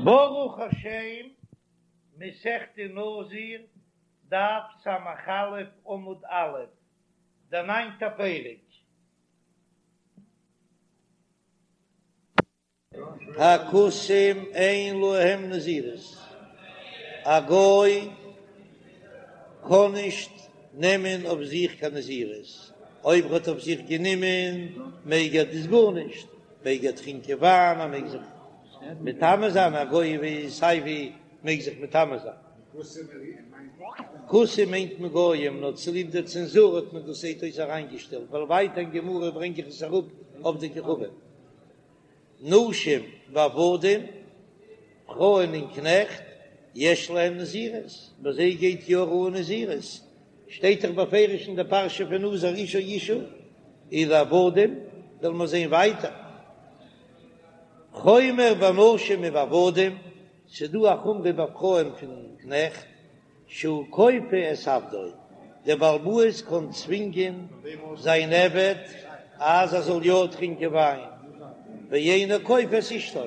ברוך השם, מסכת נזיר, דף ס"א עמוד א', דער ניינטער פרק. הכותים אין להם נזירות, א גוי קען נישט נעמען אויף זיך קיין נזירות, אויב ער האט אויף זיך גענומען מעג ער דאס גארנישט, מעג ער טרינקען וויין, ער מעג זיך מטמא זיין, א גוי ווי סיי ווי מעג זיך מטמא זיין. כותים מיינט מען גויים, נאר צוליב דער צענזור האט מען דאס זעט אויס אריינגעשטעלט, ווייל ווייטער אין גמרא ברענג איך עס אראפ עובדי כוכבים. נשים ועבדים, פרויען און קנעכט, יש להם נזירות, ביי זיי גייט יא אן נזירות, שטייט דאך בפירוש אין די פרשה פון נזיר איש או אשה, און עבדים וועלן מיר זען ווייטער. חומר בנשים ובעבדים, ס'דא א חומרא ביי פרויען פון קנעכט, שהוא כופה את עבדו, דער בעל הבית קען צווינגען זיין עבד אז ער זאל יא טרינקען וויין, ואינו כופה את אשתו,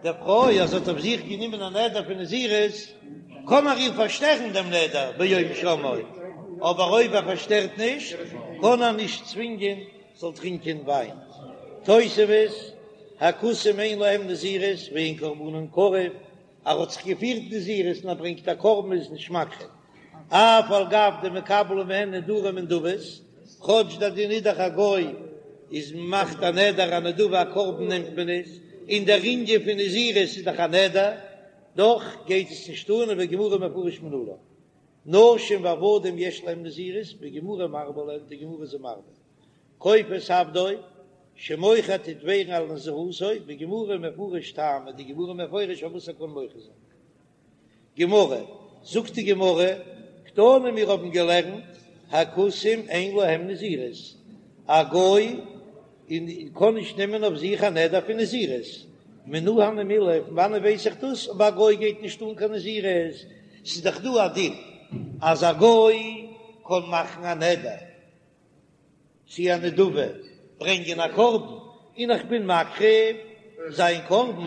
די פרוי אז זי האט אויף זיך גענומען א נדר פון נזירות, קען ער איר פארשטערן דעם נדר ביום שמעו, אבער אויב ער פארשטערט נישט, קען ער נישט צווינגען זאל טרינקען וויין. תוספות, הכותים אין להם נזירות ואין קרבנן קרב, ער האט זיך געפירט נזירות און ער ברענגט א קרבן איז נישט מקריב, אף על גב דמקבלין מהן נדרים ונדבות, כאטש דער דין איז דאך א גוי איז מאכט א נדר א נדבה א קרבן נעמט מען עס, און דער ענין פון נזירות איז דאך א נדר, דאך גייט עס נישט אן ובגמרא מפרש מנלן. נשים ועבדים יש להם נזירות, בגמרא מרבה להם, די גמרא איז מרבה. כופה את עבדו, שמוחה טוט ווערן על נזירותו, בגמרא מפרש טעמא, די גמרא מפרש פארוואס ער קען מוחה זיין. גמרא, זאגט די גמרא, קתני מיר האבן געלערנט, הכותים אין להם נזירות, א גוי און קען נישט נעמען אויף זיך א נדר פון נזירות, מנא הני מילי, פון וואנען ווייס איך דאס, אויב א גוי גייט נישט אן קיין נזירות, ס'איז דאך דא א דין אז א גוי קען מאכן א נדר צו א נדבה, ברענגען א קרבן, און איך בין מקריב זיין קרבן,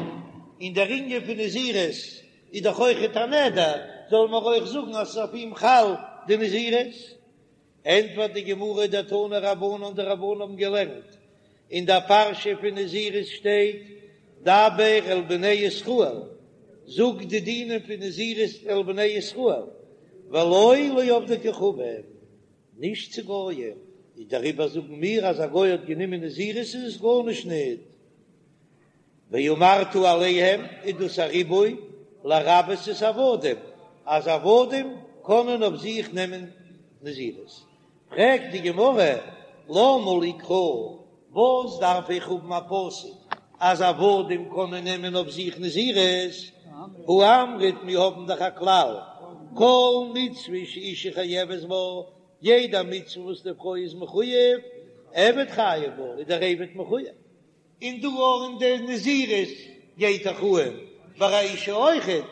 און דער ענין פון נזירות איז דאך אויכעט א נדר, זאל מען אויך זאגן אז ס'איז אויף אים חל די נזירות? ענטפערט די גמרא דתנו רבנן, די רבנן האבן געלערנט אין דער פרשה פון נזירות שטייט דבר אל בני ישראל, זאג די דינים פון נזירות אל בני ישראל, ולא לעובדי כוכבים, נישט צו גויים, איז דעריבער זאגן מיר אז א גוי האט גענומען נזירות איז עס גארנישט ניט. ואמרת אליהם איז דאס א ריבוי לרבות את העבדים, אז עבדים קענען אויף זיך נעמען נזירות. פרעגט די גמרא, למה לי קרא, וואס דארף איך האבן א פסוק אז עבדים קענען נעמען אויף זיך נזירות? הא אמרת מיר האבן דאך א כלל, כל מצוה שאשה חייבת בה, יעדע מצוה וואס די פרוי איז מחויב, עבד חייב בה, איז דער עבד מחויב. און דא אויך אין די נזירות גייט דאך אן ביי א אשה אויכעט,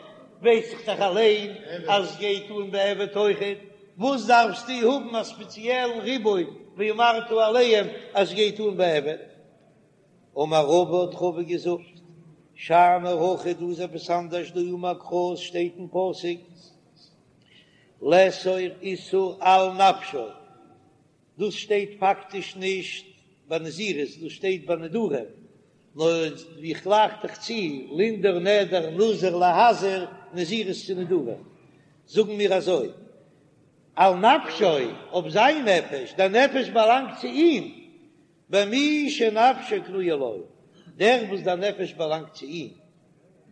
ווייס איך דאך אליין אז עס גייט אן ביי עבד אויכעט, וואס דארפסטו האבן א ספעציעלן ריבוי ואמרת אליהם אז עס גייט אן ביי עבד? אמר רבא האט רבא געזאגט, שאני הכא דא איז עפעס אנדערש דאמר קרא עס שטייט אין פסוק לאסור איסור על נפשו, דאס שטייט פאקטיש נישט ביי נזירות, דאס שטייט ביי נדרים, נאר איך גלייך דאך צו לנדור נדר נזיר להזיר נזירות צו נדרים, זאגן מיר אזוי, על נפשו, אויף זיין נפש, דער נפש באלאנגט צו אים, במי שנפשו קנויה לו, דער וואס דער נפש באלאנגט צו אים,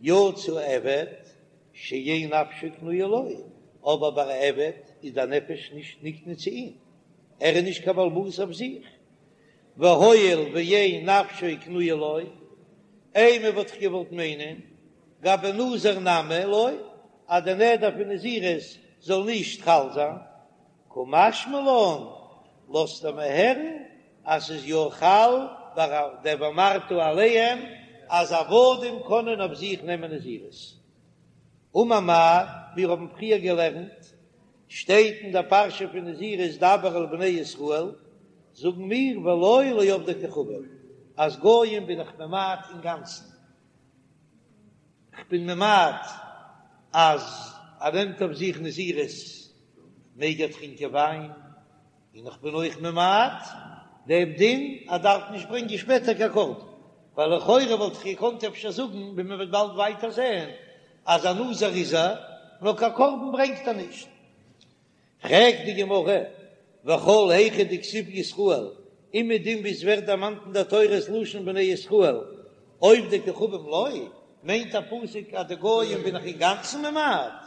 יצא עבד שאין נפשו קנויה לו, אבער ביי א עבד איז דער נפש נישט נקנה צו אים, ער איז נישט קיין בעל הבית אויף זיך, והואיל ואין נפשו קנויה לו, אימא וואלט איך געוואלט מיינען, גבי נזיר נמי לא, אז די נדר פון נזירות זאל נישט חל זיין, קא משמע לן, לאזט ער מיר הערן אז ס'איז יא חל ביי דער ואמרת אליהם אז עבדים קענען אויף זיך נעמען נזירות. אמר מר, מיר האבן פריער געלערנט, שטייט אין דער פרשה פון נזירות דבר אל בני ישראל, זאגן מיר ולא לעובדי כוכבים, אז גויים בין איך ממעט אינגאנצן. כ'בין ממעט אז ער נעמט אויף זיך נזירות מעג ער טרינקען וויין, און איך בין אויך ממעט דעם דין ער דארף נישט ברענגען שפעטער קיין קרבן, ווייל לכאורה וואלט איך געקאנט אפשר זאגן, ווי מען וועט באלד ווייטער זען, אז א נזיר איז ער, נאר קיין קרבן ברענגט ער נישט. פרעגט די גמרא, וכל היכא דכתיב ישראל, אומעדום ווי עס ווערט דערמאנט אין דער תורה ס'לשון בני ישראל, עובדי כוכבים לא, מיינט דער פסוק אז די גויים בין איך אינגאנצן ממעט?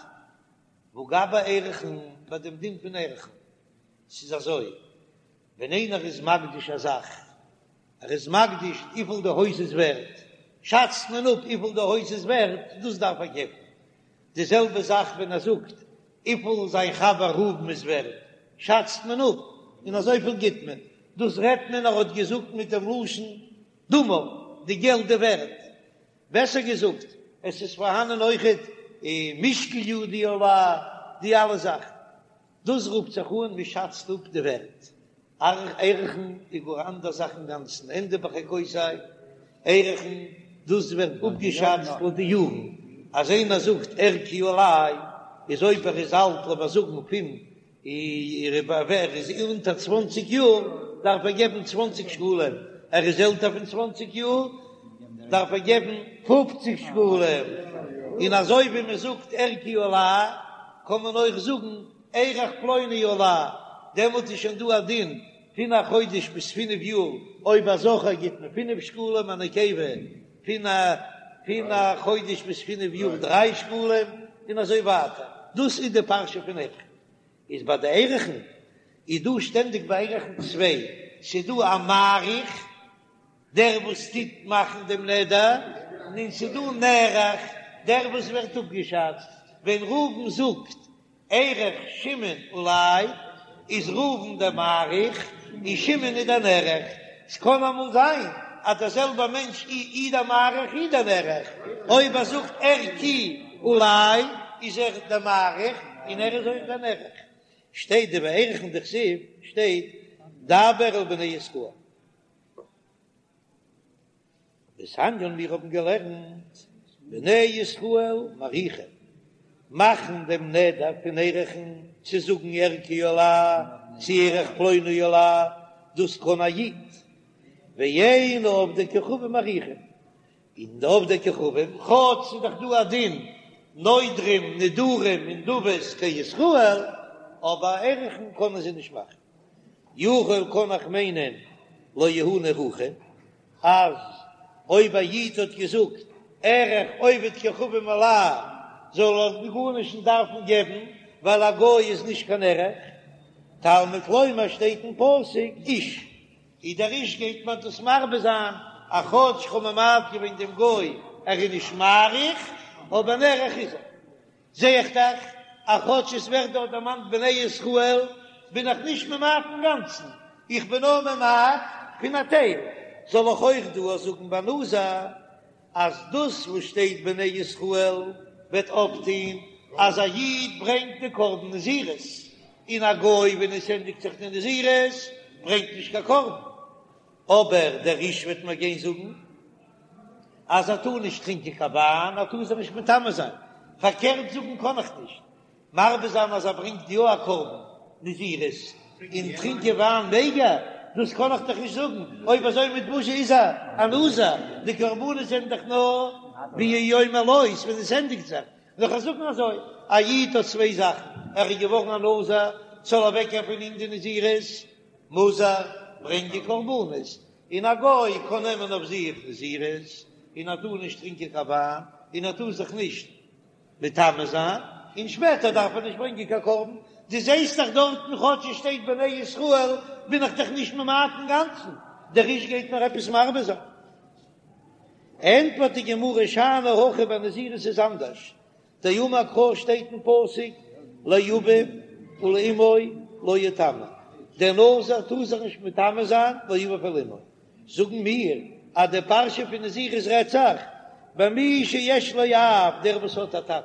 והא גבי ערכין, ביי דעם דין פון ערכין, ס'איז אזוי, ווען איינער איז מקדיש א זאך, ער איז מקדיש וויפיל די הויז איז ווערט, שאצט מען אפ וויפיל די הויז איז ווערט, דאס דארף ער געבן. די זעלבע זאך ווען ער זאגט וויפיל זיין חבר ראובן איז ווערט, שאצט מען אפ און אזויפיל גיט מען. דאס רעדט מען ער האט געזאגט מיט דעם לשון דמיו, די געלט די ווערט. בעסער געזאגט, עס איז פארהאנען אויכעט משקל ידי עלי, די אלע זאכן. דאס רופט זיך אן מען שאצט אפ די ווערט. ערכין איז גאר אנדער זאך אינגאנצן, ענדע בחוקותי, ערכין, דאס ווערט אפגעשאצט לויט די יארן, אז איינער זאגט ערכי עלי, איז אויב ער איז אלט לאמיר זאגן פון ער איז אונטער צוואנציג יאר דארף ער געבן צוואנציג שקלים, ער איז עלטער פון צוואנציג יאר דארף ער געבן פופציג שקלים, און אזוי ווי מען זאגט ערכי עלי קען מען אויך זאגן ערך פלוני עלי, דעמאלט איז שוין דא א דין פון א חודש ביז פינף יאר, אויב א זכר גיט מען פינף שקלים, א נקבה פון א פון א חודש ביז פינף יאר דריי שקלים, און אזוי ווייטער, דאס איז די פרשה פון ערכין. איז ביי די ערכין איז דא שטענדיג ביי ערכין צוויי, ס'איז דא א מעריך, דער וואס טוט מאכן דעם נדר, און ס'איז דא נערך, דער וואס ווערט אפגעשאצט, ווען ראובן זאגט ערך שמעון עלי, איז ראובן דער מעריך און שמעון איז דער נערך, ס'קען אמאל זיין אז דער זעלבער מענטש אי דער מעריך אי דער נערך, אויב ער זאגט ערכי עלי איז ער דער מעריך און ער איז אויך דער נערך. שטייט דבערכין דכתיב שטייט דבר אל בני ישראל. דתניא מיר האבן געלערנט בני ישראל מעריכין, מאכן דעם נדר פון ערכין צו זאגן ערכי עלי צו ערך פלוני עלי, דאס קען א איד, ואין עובדי כוכבים מעריכין, און די עובדי כוכבים, כאטש ס'איז דאך דא א דין נודרים נדרים ונדבות כישראל, אבער ערכין קענען זיי נישט מאכן. יכול קען איך מיינען לא יהא נערכין, אז אויב א איד האט געזאגט ערך עובד כוכבים עלי זאל ער גארנישט נישט דארפן געבן ווייל א גוי איז נישט קיין ערך, תלמוד לומר שטייט אין פסוק איש, איז דער איש גייט מען דאס מרבה זיין אז כאטש כ'האב ממעט געווען דעם גוי ער איז נישט מעריך אבער נערך איז ער. זע איך דאך אז כאטש עס ווערט דארט דערמאנט בני ישראל, בין איך נישט ממעט אינגאנצן, איך בין נאר ממעט פון א טייל. זאל איך אויך דא זאגן ביי נזיר אז דאס וואס שטייט בני ישראל וועט אויפטון אז א איד ברענגט די קרבן נזירות, און א גוי ווען עס ענדיגט זיך די נזירות ברענגט נישט קיין קרבן, אבער דער איש וועט מיר גיין זאגן אז ער טאר נישט טרינקען קיין וויין, ער טאר זיך נישט מטמא זיין, פארקערט זאגן קען איך נישט, מרבה זיין אז ער ברענגט יא א קרבן נזירות און טרינקען וויין מעג ער, דאס קען איך דאך נישט זאגן, אויב אזוי מיט וואס איז ער א נזיר, די קרבנות זענען דאך נאר ביום מלאות ווען עס ענדיגט זיך, וועל איך זאגן אזוי, א איד האט צוויי זאכן, ער איז געווארן א נזיר, ס'זאל אוועקגיין פון אים די נזירות, מוז ער ברענגען קרבנות, און א גוי קען נעמען אויף זיך נזירות, און ער טאר נישט טרינקען קיין וויין, און ער טאר זיך נישט מטמא זיין, און שפעטער דארף ער נישט ברענגען קיין קרבן. דו זעסט דאך דארטן כאטש עס שטייט בני ישראל בין איך דאך נישט ממעט אינגאנצן, דער איש גייט מיר עפעס מרבה זיין. ענטפערט די גמרא שאני הכא ביי נזירות איז אנדערש, דאמר קרא שטייט אין פסוק לאביו ולאמו לא יטמא, דער נזיר טאר זיך נישט מטמא זיין לאביו ולאמו, זאגן מיר אז די פרשה פון נזירות רעדט זיך במי שיש לו אב, דער וואס האט א טאטן,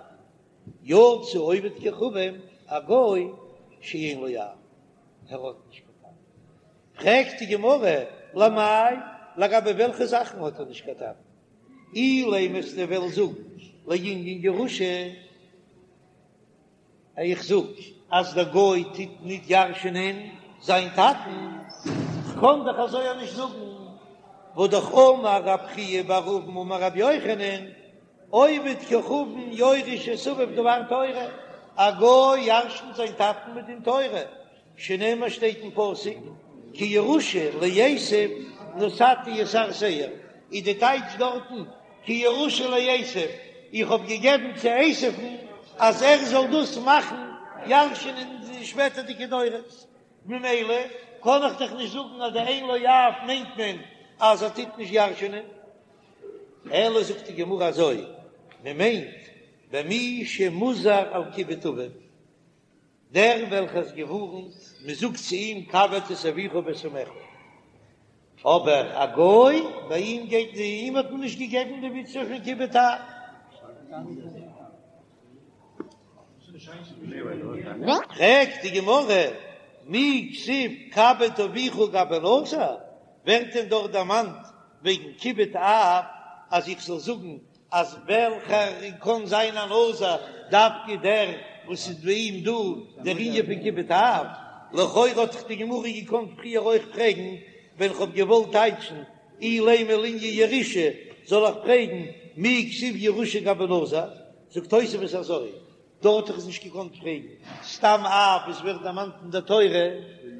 יצא עובד כוכבים, א גוי שאין לו אב, ער האט נישט קיין טאטן. פרעגט די גמרא, למאי, לגבי וועלכע זאכן האט ער נישט קיין טאטן? אילימא וועסטו וועלן זאגן. לענין ירושה, איך זאג אז דער גוי טוט ניט ירש'ענען זיין טאטן, כ'קען דאך אזוי אויך נישט זאגן, והא דאך אמר רב חייא בר אבין אמר רבי יוחנן, עובד כוכבים יורש את אביו דבר תורה, א גוי ירש'נט זיין טאטן מדין תורה, שנאמר שטייט אין פסוק כי ירושה לעשו נתתי את הר שעיר, איז די טייטש דארטן כי ירושה לעשו, איך האב געגעבן צו עשו'ן אז ער זאל דאס מאכן ירש'ענען אין די שפעטערדיגע דורות, ממילא קען איך דאך נישט זאגן אז די אין לו אב מיינט מען אז ער טוט נישט ירש'ענען. אלא זאגט די גמרא אזוי, מען מיינט במי שמוזהר על כיבוד אביו, דער וועלכער איז געווארנט, מען זאגט צו אים כבד את אביך ואת אמך, אבער א גוי, ביי אים גייט די, אים האט מען נישט געגעבן די מצוה פון כיבוד אב. פרעגט די גמרא, מי כתיב כבד אביך גבי נזיר, ווערט דען דארט דערמאנט וועגן כיבוד אב אז איך זאל זאגן אז וועלכער קען זיין א נזיר דווקא דער וואס איז ביי אים דא דער ענין פון כיבוד אב? לכאורה האט דאך די גמרא געקאנט פריער אויך פרעגן ווען כ'האב געוואלט טייטשן אילימא לענין ירושה זאל איך פרעגן מי כתיב ירושה גבי נזיר? זאגט תוספות אזוי, דארט האט איך עס נישט געקאנט פרעגן, סתם אב וואס ווערט דערמאנט אין דער תורה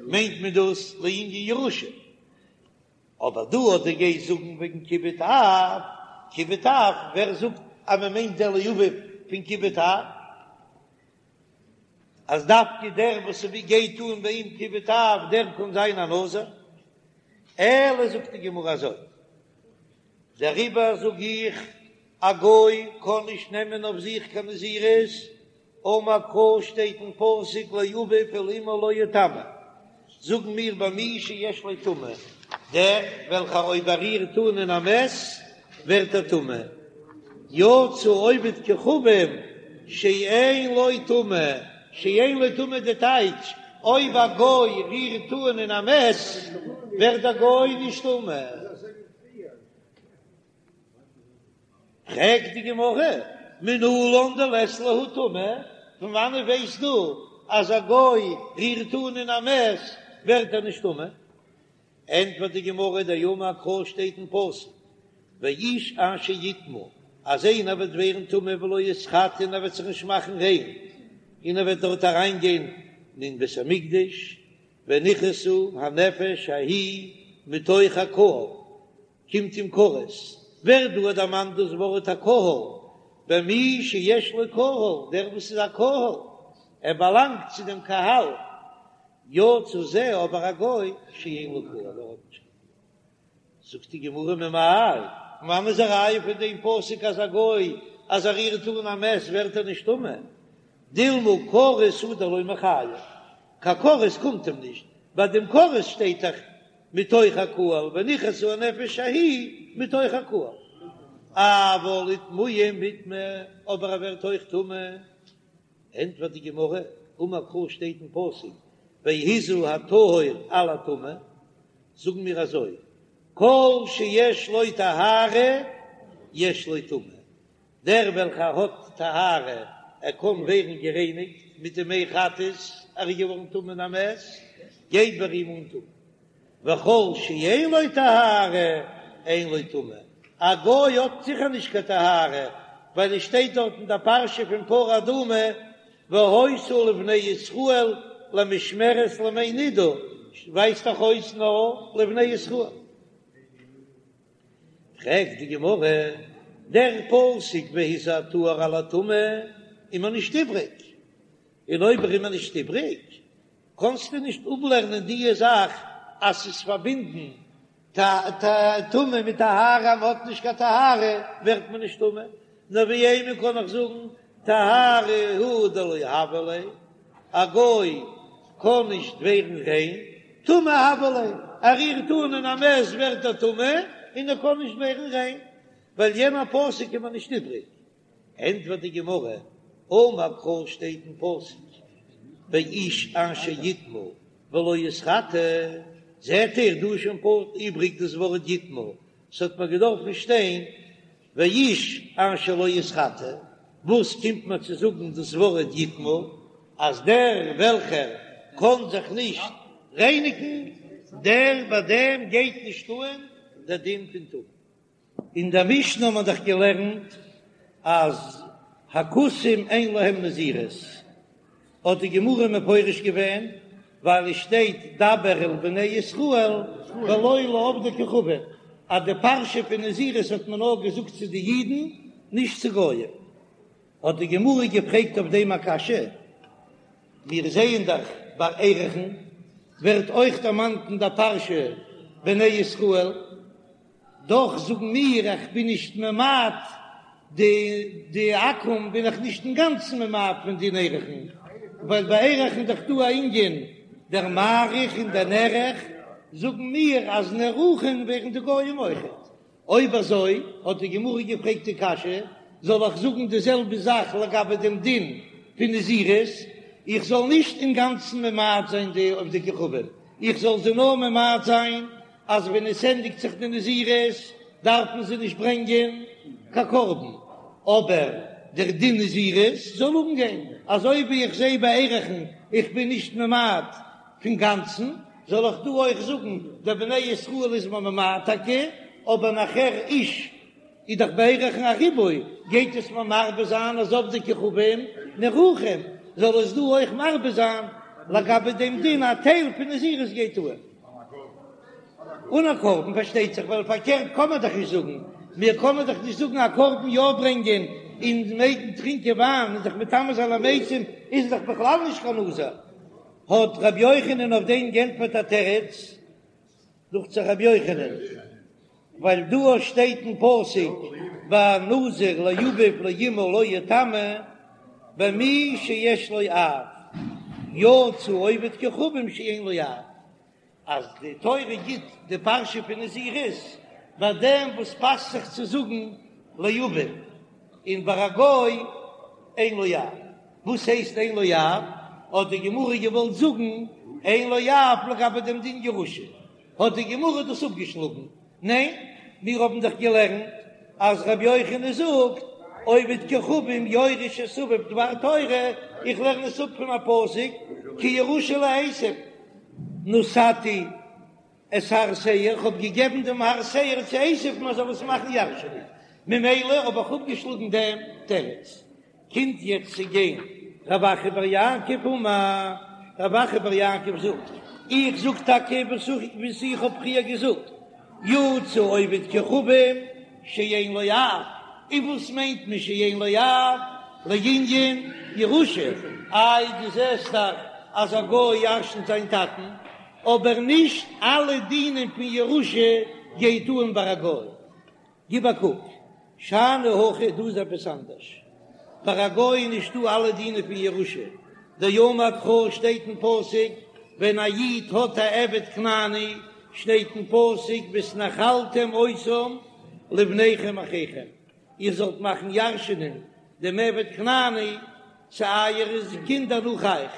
מיינט מען דאס לענין ירושה. אבער דא אז דו גייסט זאגן וועגן כיבוד אב, כיבוד אב, ווער זאגט אז מען מיינט דער לאביו פון כיבוד אב? אז דווקא דער וואס גייט אן ביי אים כיבוד אב דער קען זיין א נזיר? אלא זאגט די גמרא אזוי, דעריבער זאג איך, א גוי קען נישט נעמען אויף זיך קיין נזירות, אמר קרא שטייט אין פסוק לאביו ולאמו לא יטמא, זאגן מיר במי שיש לו טומאה, דער וועלכער אויב ער רירט אן אין א מת ווערט ער טמא, יצא עובד כוכבים שאין לו טומאה, שאין לו טומאה די טייטש, אויב א גוי רירט אן אין א מת ווערט דער גוי נישט טמא. פרעגט די גמרא, מנלן דלית להו טומאה, פון וואנעט ווייסטו אז א גוי רירט אן אין א מת ווערט ער נישט טמא? ענטפערט די גמרא, דאמר קרא שטייט אין פסוק, ואיש אשר יטמא, אז איינער וועט ווערן טמא ולא יתחטא און ער וועט זיך נישט מאכן ריין, און ער וועט דארט אריינגיין אין בית המקדש, ונכרתה הנפש ההיא מתוך הקהל, קומט אים כרת, ווערט דא דערמאנט דאס ווארט הקהל, במי שיש לו קהל, דער וואס איז א קהל, ער באלאנגט צו דעם קהל, יצא זה אבער א גוי שאין לו קהל, ער האט נישט קיין קהל. זאגט די גמרא ממאי, פון וואנען איז א ראיה פון דעם פסוק אז א גוי אז ער רירט אן א מת ווערט ער נישט טמא, דילמא כרת הוא דלא מיחייב, קיין כרת קומט אים נישט, ביי דעם כרת שטייט דאך מתוך הקהל ונכרתה הנפש ההיא מתוך הקהל, אבל איטמויי מיטמא, אבער ער ווערט אויך טמא, ענטפערט די גמרא, אמר קרא שטייט אין פסוק והזה הטהור על הטמא, זאגן מיר אזוי, כל שיש לו טהרה יש לו טומאה, דער וועלכער האט טהרה, ער קען ווערן גערייניגט מיט די מי חטאת, ער איז געווארן טמא אין א מת, גייט ביי אים אן טומאה. וכל שאין לו טהרה, אין לו טומאה. א גוי האט זיכער נישט קיין טהרה, ווייל עס שטייט דארט אין דער פרשה פון פרה אדומה, והיתה לבני ישראל למשמרת לימי נדה, ווייזט דאך אויס נאר לבני ישראל. פרעגט די גמרא, דער פסוק והזה הטהור על הטמא איז מיר נישט איבריג, און אויב ער איז מיר נישט איבריג, קענסטו נישט אפלערנען די זאך אז ס'איז פארבינדן טומאה מיט טהרה, אז מ'האט נישט קיין טהרה ווערט מען נישט טמא, נאר ואימא קען איך זאגן טהרה הוא דלא הוה ליה, א גוי קען נישט ווערן ריין, טומאה הוה ליה, ער רירט אן אין א מת ווערט ער טמא און ער קען נישט ווערן ריין, ווייל יענער פסוק איז מיר נישט איבריג. ענטפערט די גמרא, אמר קרא שטייט אין פסוק ואיש אשר יטמא ולא יתחטא, זעט איר דא איז שוין פארט איבריג דאס ווארט יטמא, ס'האט מיר געדארפן שטיין. ואיש אשר לא יתחטא, וואס קומט מיר צו זאגן דאס ווארט יטמא, אז דער וועלכער קען זיך נישט רייניגן, דער ביי דעם גייט נישט אן דער דין פון טומאה. אין דער משנה האט מען דאך געלערנט אז הכותים אין להם נזירות, האט די גמרא מפרש געווען, ווייל עס שטייט דבר אל בני ישראל ולא לעובדי כוכבים, אז די פרשה פון נזירות האט מען נאר געזאגט צו די אידן, נישט צו גויים. האט די גמרא געפרעגט אויף דעם א קשיא, מיר זעען דאך ביי ערכין ווערט אויך דערמאנט אין דער פרשה בני ישראל, דאך זאגן מיר איך בין נישט ממעט די די עכו"ם בין איך נישט אינגאנצן ממעט פון דין ערכין, ווייל ביי ערכין איז דאך דא א ענין דער מעריך און דער נערך, זאגן מיר אז נערכין ווערן די גויים אויכעט. אויב אזוי האט די גמרא געפרעגט די קשיא, זאל איך זאגן די זעלבע זאך לגבי דעם דין פון נזירות, איך זאל נישט אינגאנצן ממעט זיין די עובדי כוכבים, איך זאל זיי נאר ממעט זיין אז ווען עס ענדיגט זיך די נזירות דארפן זיי נישט ברענגען קיין קרבן, אבער דער דין נזירות זאל אנגיין, אזוי ווי איך זע ביי ערכין איך בין נישט ממעט פון גאנצן, זאל איך דא אויך זאגן דער בני ישראל איז מען ממעט טאקע, אבער נאכער איש איז דאך ביי ערכין א ריבוי, גייט עס מיר מרבה זיין אז עובדי כוכבים נערכין, זאל עס דא אויך מרבה זיין לגבי דעם דין א טייל פון נזירות גייט אן. אן א קרבן פארשטייט זיך, ווייל פארקערט קען מען דאך נישט זאגן, מיר קענען דאך נישט זאגן א קרבן יא ברענגען און מעגן טרינקען וויין און זיך מטמא זיין למתים איז דאך בכלל נישט קיין נזיר. האט רבי יוחנן אויף דעם גענטפערט א תירוץ, דוכט זיך רבי יוחנן, ווייל דא שטייט אין פסוק והנזיר לאביו ולאמו לא יטמא במי שיש לו אב, יצא עובד כוכבים שאין לו אב, אז די תורה גיט די פרשה פון נזירות ביי דעם וואס פאסט זיך צו זאגן לאביו, און ביי א גוי אין לו אב. וואס הייסט אין לו אב? האט די גמרא געוואלט זאגן אין לו אב לגבי דעם דין ירושה, האט די גמרא דאס אפגעשלאגן, ניין, מיר האבן דאך געלערנט אז רבי יוחנן זאגט עובד כוכבים יורש את אביו דבר תורה, איך לערן עס אפ פון א פסוק כי ירושה לעשו, נתתי את הר שעיר, איך האב געגעבן דעם הר שעיר צו עשו מען זאל עס מאכן ירש'ענען, ממילא האב איך אפגעשלאגן דעם תירוץ. קומט יעצט צו גיין רב אחא בר יעקב אמר, רב אחא בר יעקב זאגט, איך זאג טאקע וואס איך האב פריער געזאגט, יצא עובד כוכבים שאין לו אב, און וואס מיינט מען שאין לו אב? לענין ירושה, איי דו זעסט דאך אז א גוי ירשנט זיין טאטן, אבער נישט אלע דינים פון ירושה גייט אן ביי א גוי, גיב א קוק, שאני הכא, דא איז עפעס אנדערש, ביי א גוי איז נישטא אלע דינים פון ירושה, דאמר קרא שטייט אין פסוק ווען א איד האט א עבד כנעני שטייט אין פסוק והתנחלתם אותם לבניכם אחריכם, איר זאלט מאכן ירש'ענען דעם עבד כנעני צו אייערע קינדער נאך אייך,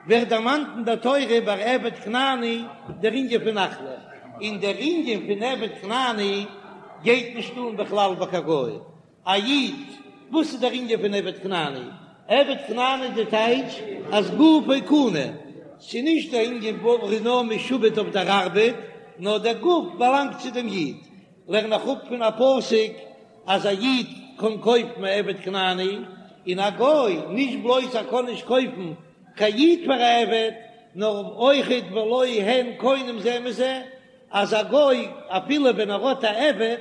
ווערט דערמאנט אין דער תורה ביי עבד כנעני דער ענין פון נחלה, און דער ענין פון עבד כנעני גייט נישט אן בכלל ביי קיין גוי, א איד, וואס איז דער ענין פון עבד כנעני? עבד כנעני איז די טייטש אז גופו קנוי, ס'איז נישט דער ענין וואס ער איז נאר משועבד אויף דער ארבעט, נאר דער גוף באלאנגט צו דעם איד, לערן איך אפ פון א פסוק אז א איד קען קויפן א עבד כנעני, און א גוי, נישט בלויז ער קען נישט קויפן קיין איד פאר א עבד, נאר אויכעט ולא הן קונים זה מזה, אז א גוי אפילו ווען ער האט א עבד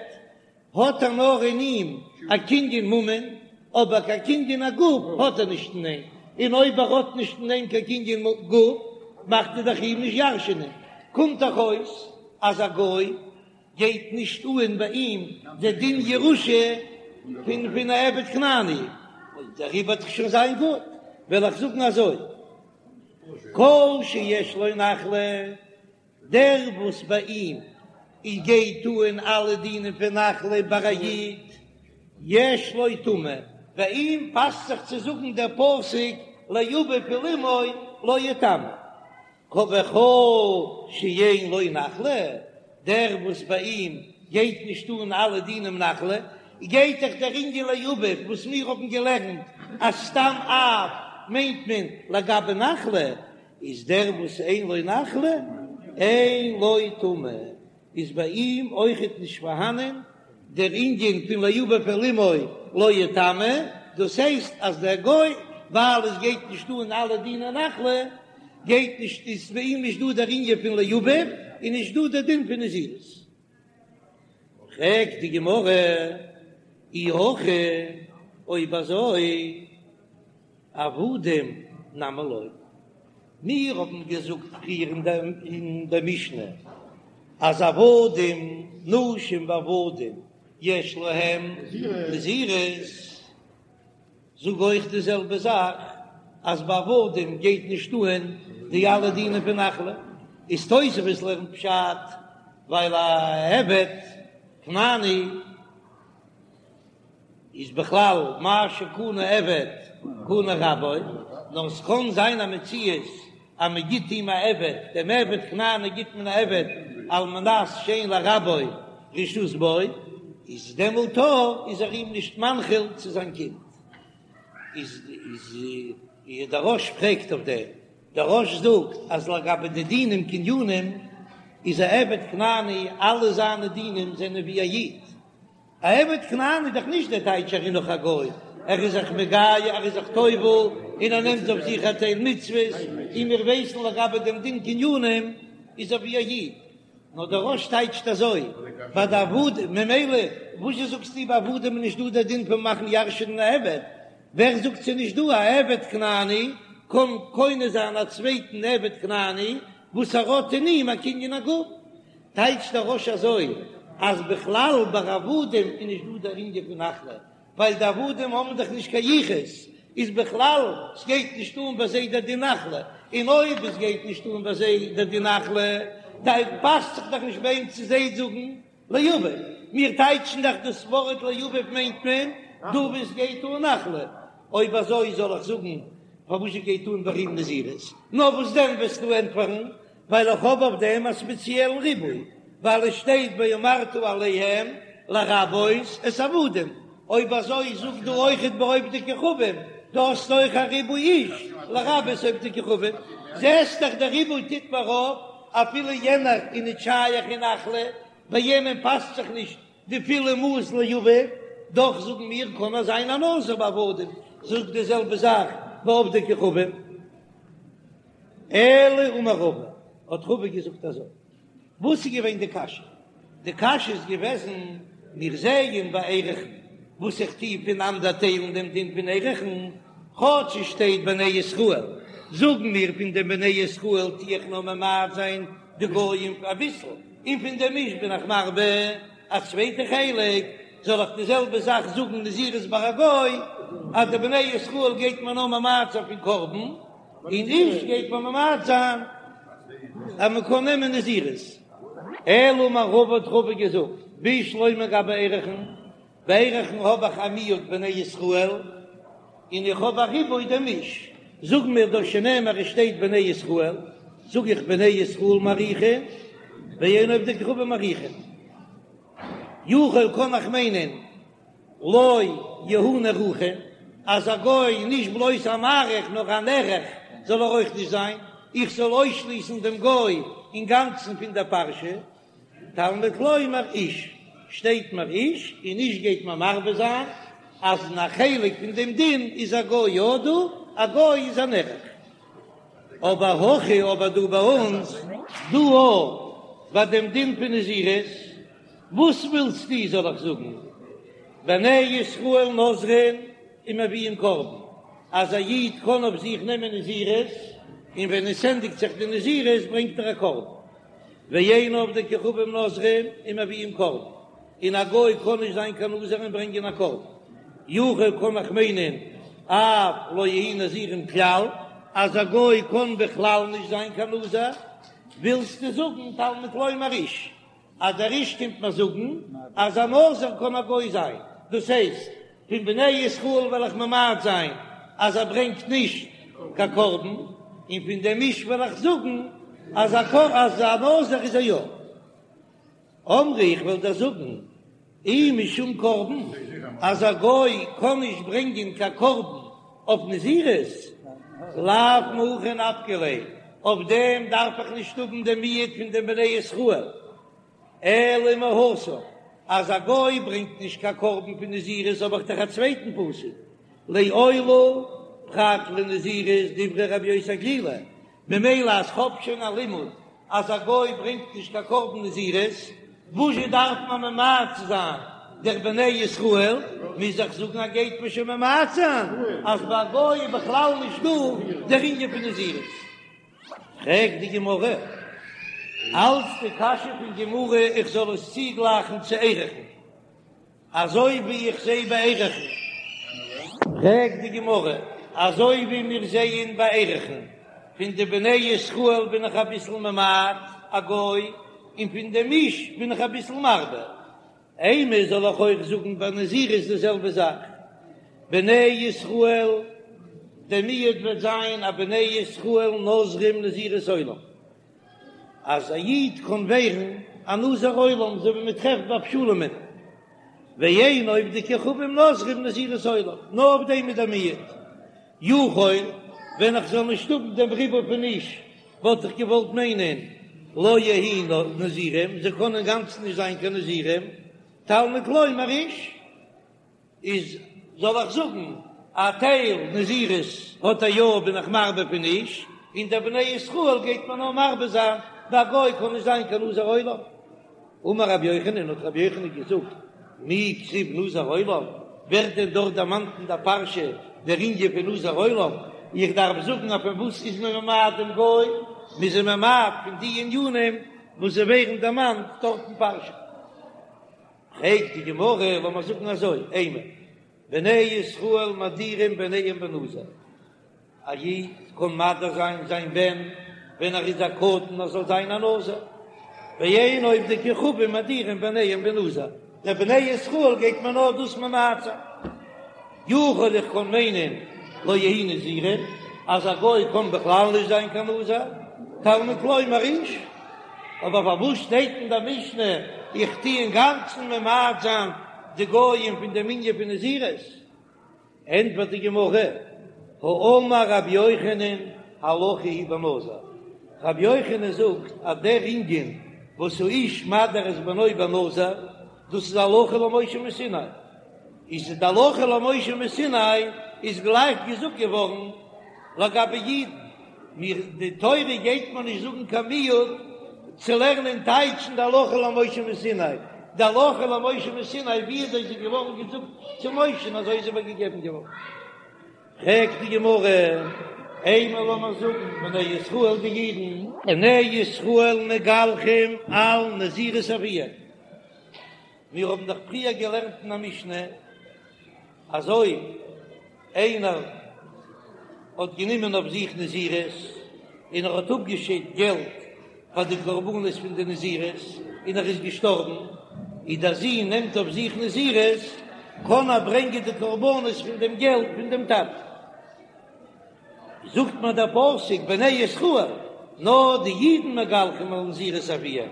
האט ער נאר אין אים א קנין ממון, אבער קיין קנין הגוף האט ער נישט אין אים, און אויב ער האט נישט אין אים קיין קנין גוף מאכט ער דאך אים נישט ירש'ענען, קומט דאך אויס אז א גוי גייט נישט אן ביי אים די דין ירושה פון פון א עבד כנעני, דעריבער וועט דאך שוין זיין גוט, וועל איך זאגן אזוי, כל שיש לו נחלה, דער וואס ביי אים איז גייט אן אלע דינים פון נחלה ביי א איד, יש לו טומאה, ביי אים פאסט זיך צו זאגן דער פסוק לאביו ולאמו לא יטמא. וכל שאין לו נחלה, דער וואס ביי אים גייט נישט אן אלע דינים נחלה, גייט דאך דער ענין לאביו וואס מיר האבן געלערנט אז סתם אב מיינט מען לגבי נחלה, איז דער וואס אין לו נחלה אין לו טומאה, איז ביי אים אויכעט נישט פארהאנען דער ענין פון לאביו ולאמו לא יטמא, דאס הייסט אז דער גוי ווייל עס גייט נישט אן אלע דיני נחלה גייט נישט איז ביי אים נישט דא דער ענין פון לאביו און נישט דא דער דין פון נזירות. פרעגט די גמרא אי הכי אויב אזוי עבדים נמי לא, מיר האבן געזאגט פריער אין דער משנה אז עבדים נשים ועבדים יש להם נזירות, זאג אויך די זעלבע זאך אז ביי עבדים גייט נישט אהן די אלע דינים פון נחלה, איז תוספות לערנט פשט ווייל א עבד כנעני איז בכלל מה שקנה עבד קנה רבו, נאר ס'קען זיין א מציאות אז מען גיט אים א עבד, דעם עבד כנעני גיט מען א עבד על מנת שאין לרבו רשות בו, איז דעמאלט איז ער אים נישט מנחיל צו זיין קינד. איז איז דער רא"ש פרעגט אויף דעם, דער רא"ש זאגט אז לגבי די דינים קנינים איז א עבד כנעני אלע זיינע דינים זענען ווי א איד, א עבד כנעני איז דאך נישט דער טייטש ער איז נאך א גוי, ער איז זיך מגייר, ער איז זיך טובל, און ער נעמט אויף זיך א טייל מצוות, און מיר ווייסן לגבי דעם דין קנינים איז ער ווי א איד, נאר דער רא"ש טייטשט אזוי ביי די עבדים, ממילא וואזשע זאגסטו ביי עבדים איז נישט דא דער דין פון מאכן ירש'ענען א עבד, ווער זאגט ס'איז נישט דא א עבד כנעני קען קונה זיין א צווייטן עבד כנעני וואס ער האט אין אים א קנין הגוף? טייטשט דער רא"ש אזוי אז בכלל ביי עבדים איז נישט דא דער ענין פון נחלה, ווייל די עבדים האבן דאך נישט קיין יחוס, איז בכלל סגייט נישט אן ביי זיי דער דין נחלה, און אויב עס גייט נישט אן ביי זיי דער דין נחלה, פאסט זיך דאך נישט ביי אים צו זיי זאגן לאביו, מיר טייטשן דאך דאס ווארט לאביו מיינט מען דא וואו עס גייט אן נחלה, אויב אזוי זאל איך זאגן פארוואס גייט אן ביי אים נזירות, נאר וואס דען וועסטו ענטפערן ווייל איך האב אויף דעם א ספעציעלן ריבוי, ווייל עס שטייט ואמרת אליהם לרבות את העבדים, אויב אזוי זאג דא אויכעט ביי עובדי כוכבים, דא האסטו אויך א ריבוי איש לרבות עובדי כוכבים, זעסט דאך דער ריבוי טוט מיר אויף, אפילו יענער איז נישט שייך אין נחלה, ביי יענעם פאסט זיך נישט די פולע מאס לאביו, דאך זאגן מיר קען ער זיין א נזיר ביי עבדים, זאג די זעלבע זאך ביי עובדי כוכבים. אלא אמר רבא, האט רבא געזאגט אזוי, וואס איז געווען די קשיא? די קשיא איז געוועזן, מיר זעען ביי ערכין, וואס איך טו פונאנדערטיילן דעם דין פון ערכין, כאטש עס שטייט בני ישראל, זאגן מיר פון דעם בני ישראל טו איך נאר ממעט זיין די גויים אביסל, און פון דעם איש בין איך מרבה א צווייטע חלק, זאל איך די זעלבע זאך זאגן נזירות ביי א גוי, אז די בני ישראל גייט מען נאר ממעט זיין פון קרבן, און איש גייט מען ממעט זיין אז מען קען נעמען נזירות. אלא אמר רבא האט רבא געזאגט, בשלמא גבי ערכין, ביי ערכין האב איך א מיעוט בני ישראל, און איך האב א ריבוי דעם איש, זאג מיר דאך שנאמר עס שטייט בני ישראל, זאג איך בני ישראל מעריכין, ואין עובדי כוכבים מעריכין. יכול קען איך מיינען לא יהו נערכין, אז א גוי נישט בלויז א מעריך נאר א נערך זאל ער אויך נישט זיין, איך זאל אויסשליסן דעם גוי אינגאנצן פון דער פרשה, תלמוד לומר איש, שטייט מיר איש, און איש גייט מען מרבה זיין אז אין א חלק פון דעם דין איז א גוי יא דא, א גוי איז א נערך. אבער הכא אבער דא ביי אונז דא אויך ביי דעם דין פון נזירות, וואס ווילסטו זאל איך זאגן, בני ישראל נוזרין ומביאין קרבן, אז א איד קען אויף זיך נעמען נזירות, און ווען עס ענדיגט זיך די נזירות ברענגט ער א קרבן, ואין עובדי כוכבים נוזרין ומביאין קרבן, און א גוי קען נישט זיין קיין נזיר און ברענגען א קרבן, יכול קען איך מיינען אף לא יהו נזירים כלל, אז א גוי קען בכלל נישט זיין קיין נזיר, ווילסטו זאגן תלמוד לומר איש, אז דער איש קומט מיר זאגן אז א נזיר קען א גוי זיין, דאס הייסט פון בני ישראל וועל איך ממעט זיין אז ער ברענגט נישט קיין קרבן, און פון דעם איש וועל איך זאגן אז א נזיר איז ער יא. אמרי איך וועל דיר זאגן. אי משום קרבן, אז א גוי קען נישט ברענגען קיין קרבן אויף נזירות, לאו מהכא נפקא ליה, אויף דעם דארף איך נישט האבן דעם מיעוט פון די בני ישראל, אלא מהתם, אז א גוי ברענגט נישט קיין קרבן פון נזירות האב איך דאך א צווייטן פסוק, לעולה פרט לנזירות דברי רבי יוסי הגלילי, ממילא אז כ'האב שוין א לימוד אז א גוי ברענגט נישט קיין קרבן נזירות, וואזשע דארף מען ממעט זיין דער בני ישראל? מוז איך זאגן אז גייט מען שוין ממעט זיין אז ביי א גוי איז בכלל נישט דא דער ענין פון נזירות. פרעגט די גמרא אלץ די קשיא פון גמרא איך זאל עס צוגלייכן צו ערכין. אזוי ווי איך זע ביי ערכין. פרעגט די גמרא, אזוי ווי מיר זעען ביי ערכין, פון די בני ישראל בין איך אביסל ממעט א גוי, און פון דעם איש בין איך אביסל מרבה, אימא זאל איך אויך זאגן ביי נזירות די זעלבע זאך, בני ישראל, דער מיעוט וועט זיין אז בני ישראל נוזרים נזירות עולם. אז א איד קען ווערן א נזיר עולם אזוי ווי מען טרעפט ביי אבשלום'ן, ואין עובדי כוכבים נוזרים נזירות עולם, נאר אויף דעם איז דער מיעוט. יכול, ווען איך זאל נישט האבן דעם ריבוי פון איש, וואלט איך געוואלט מיינען לא יהו נזירים, זיי קענען אינגאנצן נישט זיין קיין נזירים, תלמוד לומר איש. איז זאל איך זאגן א טייל נזירות האט ער יא בין איך מרבה פון איש, און דער בני ישראל גייט מען נאר מרבה זיין ביי א גוי קען נישט זיין קיין נזיר עולם. אמר רבי יוחנן האט רבי יוחנן געזאגט מי כתיב נזיר עולם, ווערט דען דארט דערמאנט אין דער פרשה דער ענין פון נזיר עולם, איך דארף זאגן אז פון וואס איז מען ממעט דעם גוי, מ'איז אים ממעט פון די ענינים וואס זיי ווערן דערמאנט דארט אין פרשה. פרעגט די גמרא, לאמיר זאגן אזוי, אימא, בני ישראל מדירים בניהם בנזיר, א איד קען מדיר זיין זיין בן ווען ער איז א קטן ער זאל זיין א נזיר, ואין עובדי כוכבים מדירים בניהם בנזיר, די בני ישראל גייט מען נאר דאס ממעט זיין. יכול איך קען מיינען לא יהו נזירים אז א גוי קען בכלל נישט זיין קיין נזיר, תלמוד לומר איש, אבער פארוואס שטייט אין דער משנה איך טו אינגאנצן ממעט זיין די גויים פון דעם ענין פון נזירות? ענטפערט די גמרא, האמר רבי יוחנן הלכה היא בנזיר, רבי יוחנן זאגט אז דער ענין וואס האיש מדיר את בנו בנזיר דאס איז הלכה למשה מסיני, איז די הלכה למשה מסיני איז גלייך געזאגט געווארן לגבי אידן, מיר די תורה גייט מיר נישט זאגן קיין מיעוט צו לערנען טייטשן די הלכה למשה מסיני, די הלכה למשה מסיני ווי אזוי איז געווארן געזאגט צו משה'ן אזוי איז איבערגעגעבן געווארן. פרעגט די גמרא, אימא לאמיר זאגן בני ישראל די אידן, בני ישראל מגלחים על נזירות אביהם, מיר האבן דאך פריער געלערנט אין א משנה אז אויב איינער האט גענומען אויף זיך נזירות און ער האט אפגעשיידט געלט פאר די קרבנות פון די נזירות און ער איז געשטארבן, און דער זון נעמט אויף זיך נזירות, קען ער ברענגען די קרבנות פון דעם געלט פון דעם טאטן. זאגט מיר דער פסוק בני ישראל, נאר די אידן מגלחים על נזירות אביהם,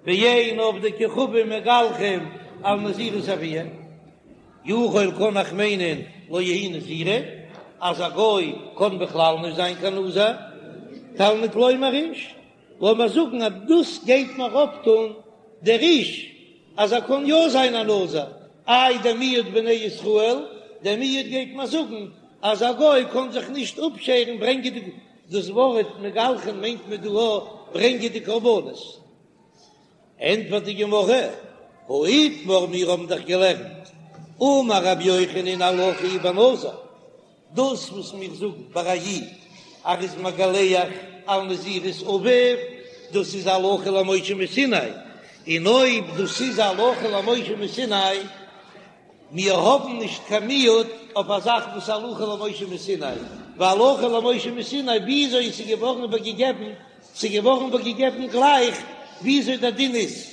ואין עובדי כוכבים מגלחים על נזירות אביהם, יכול קען איך מיינען לא יהו נזירים, אז א גוי קען בכלל נישט זיין קיין נזיר, תלמוד לומר איש, לאמיר זאגן אז דאס גייט מיר אויפטון דער איש אז ער קען יא זיין א נזיר, איי דער מיעוט בני ישראל, דער מיעוט גייט מיר זאגן אז א גוי קען זיך נישט אפשערן ברענגען די, דאס ווארט מגלחין מיינט מען דא אויך ברענגען די קרבנות. ענטפערט די גמרא, הא איתמר מיר האבן דאך געלערנט, אמר רבי יוחנן הלכה היא בנזיר, דאס וואס מיר זאגן ביי א איד אז ער איז מגלח על נזירות אביו, דאס איז הלכה למשה מסיני, און אויב דאס איז הלכה למשה מסיני, מיר האבן נישט קיין מיעוט אויף א זאך וואס הלכה למשה מסיני, והלכה למשה מסיני וויאזוי עס איז געווארן איבערגעגעבן, ס'איז געווארן איבערגעגעבן גלייך וויאזוי דער דין איז.